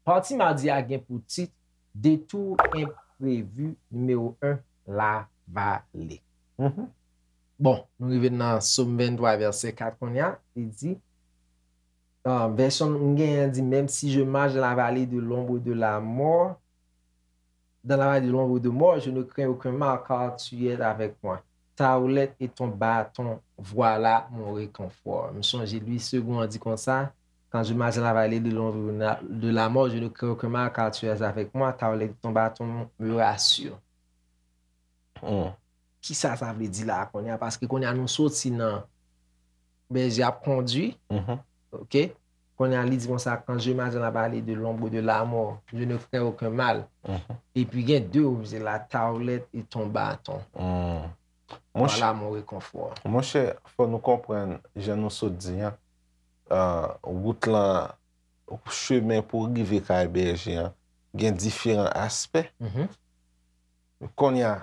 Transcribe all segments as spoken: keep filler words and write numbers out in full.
Pati madi a gen pou tit Detour enprevi nimewo en, Lavale. Mhm. Bon, nou rive nan Sòm venntwa, vèsè kat kounye a, li di, euh, vèsyon m genyen an di, même si je marche dans la vallée de l'ombre de la mort, dans la vallée de l'ombre de mort, je ne crains aucun mal, car tu es avec moi. Ta houlette et ton bâton, voilà mon réconfort. M sonje Louis Segond di konsa, quand je marche dans la vallée de l'ombre de la mort, je ne crains aucun mal, car tu es avec moi, ta houlette et ton bâton me rassurent. Hmm. Kisa sa vle di la a kounye a? Paske kounye a nou soti nan bèje ap kondui. Mhm. Ok? Kounye a li di konsa, quand je marche dans la vallée de l'ombre de la mort, je ne crains aucun mal. Mhm. Epi gen de opsyon la, ta houlette et ton bâton. Hmm. Voilà mon réconfort. Monchè, fò nou konprann, jan nou sot di an, euh, wout lan, chemen pou rive kay bèje an, gen diferan aspè. Mhm. Kounye a,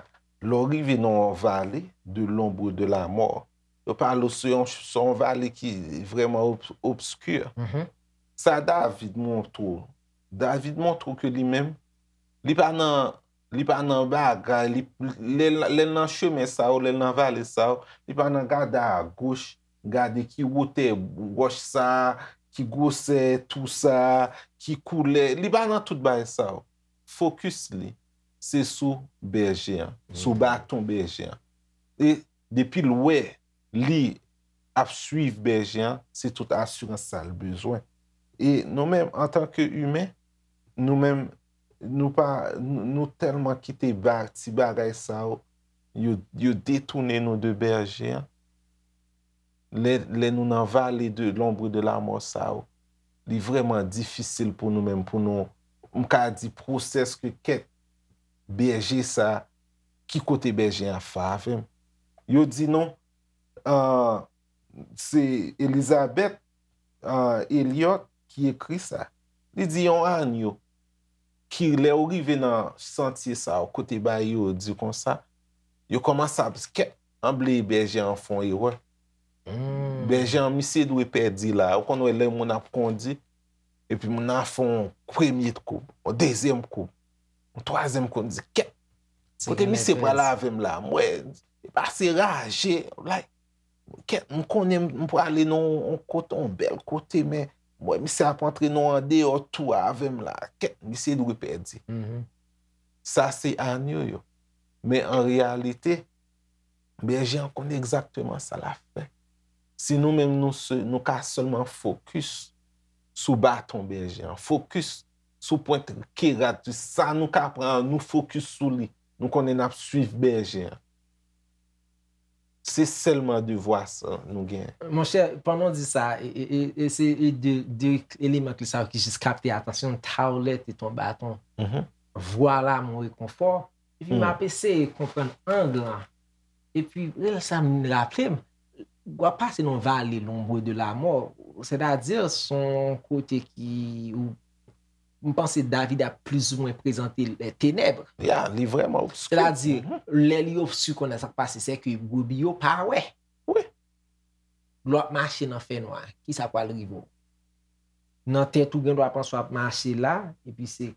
lè w rive nan yon vale de l'ombre de la mort, yo pale w se yon, se yon vale ki vrèman ob-, obskè. Mhm. Sa David montre w. David montre w ke li menm, li pa nan, li pa nan bagay, li, lè, lè l nan chemen sa yo, lè l nan vale sa yo, li pa nan gade agoch, gade ki wotè wòch sa, ki gwosè tou sa, ki koulè, li pa nan tout bagay sa yo. Fokis li, se sou bèje an, sou baton bèje an. E depi l wè li ap swiv bèje an, se tout asirans sa l bezwen. E nou menm, antanke imen, nou menm, nou pa, nou, nou tèlman kite ba-, ti bagay sa yo, yo, yo detounen nou de bèje an. Lè, lè nou nan vale de l'ombre de la mort sa yo, li vrèman difisil pou nou menm, pou nou, m ka di, pwosès ke kèt bèje sa, ki kote bèje an ap fè avè m. Yo di nou, ah, se Elizabeth, ah, Elliot ki ekri sa. Li di yon anyo ki lè ou rive nan santye sa yo, kote bagay yo di konsa, yo kòmanse ap kèt, anble bèje an fè yon erè. Hmm. Bèje an, misye dwe pèdi la. Ou konn wè lè moun ap kondi, epi moun nan fè yon premye koub, yon dezyèm koub, yon twazyèm koub, di, "Kèt, kote misye pral avè m la?" M wè, li pase raje, like, kèt, m konnen m, m prale nan yon kote, yon bèl kote, men m wè misye ap antre nan yon andeyò tou avè m la. Kèt, misye dwe pèdi. Mhm. Sa se anyo yo. Men an reyalite, bèje an konn egzakteman sa l ap fè. Si nou menm nou se, nou ka sèlman fokis sou baton bèje an, fokis sou pwent ke rad, sa nou ka pran an, nou fokis sou li. Nou konnen n ap swiv bèje an. Se sèlman devwa sa nou gen. Monchè, pandan w di sa, e, e, e, e se e de, de eleman kle sa yo ki jis kapte atansyon m, ta houlette et ton bâton. Mhm. Voilà mon réconfort. Epi m ap eseye konprann ang lan. Epi, lè sa m raple m, w ap pase nan vale l'ombre de la mort, sètadi, se yon kote ki, ou, m panse David ap plizoumwen prezante lè tenèb. Ya, li vrèman obski. Sètadi, lè li obski konnen sa k pase, se ke brebis yo pa wè. Wi. Lè w ap mache nan fènwa, kisa pral rive w? Nan tèt ou gen dwa panse w ap mache la, epi se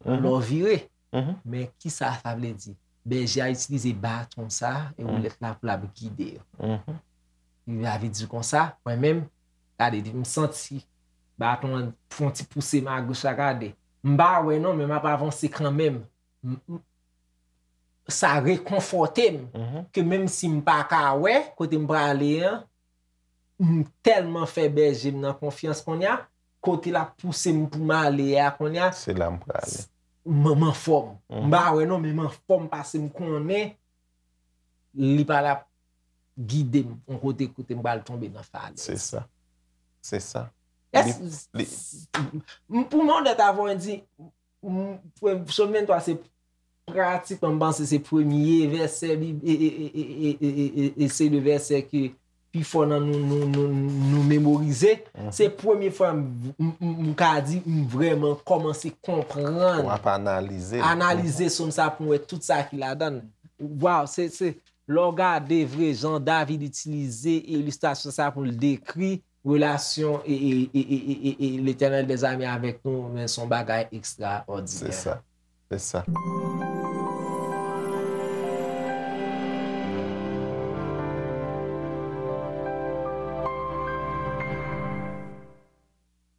lè w vire. Mhm. Men kisa sa vle di? Bèje a itilize baton sa e woulèt la pou l ap gide yo. Mhm. Li vle di konsa, mwen menm, gade, m santi baton an fè yon ti pouse m agoch la, gade. M pa wè non, men m ap avanse kanmenm. M, m, sa rekonfòte m ke menm si m pa ka wè kote m prale an, m tèlman fè bèje m nan konfyans kounye a, kote l ap pouse m pou m ale a kounye a, se la m prale. M, m anfòm. M pa wè non, men m anfòm paske m konnen li pral ap gide m yon kote, kote m pral tonbe nan falèz. Se sa. Se sa. Èske, m, pou mwen onèt avè w, di, m, Sòm venntwa se pratikman, m panse se premye vèsè Bib, e, e, e se de vèsè ke pi fò nan nou, nou, nou, nou memorize. Se premye fwa m, m, m, m ka di m vrèman kòmanse konprann, W ap analize. analize sòm sa pou m wè tout sa ki ladan l. Waw, se, se, lè w gade vre jan David itilize ilistrasyon sa pou l dekri relasyon e, e, e, e, e, e, e Letènèl dèzame avèk nou, men se yon bagay Se ekstraòdinè. Sa. Se sa.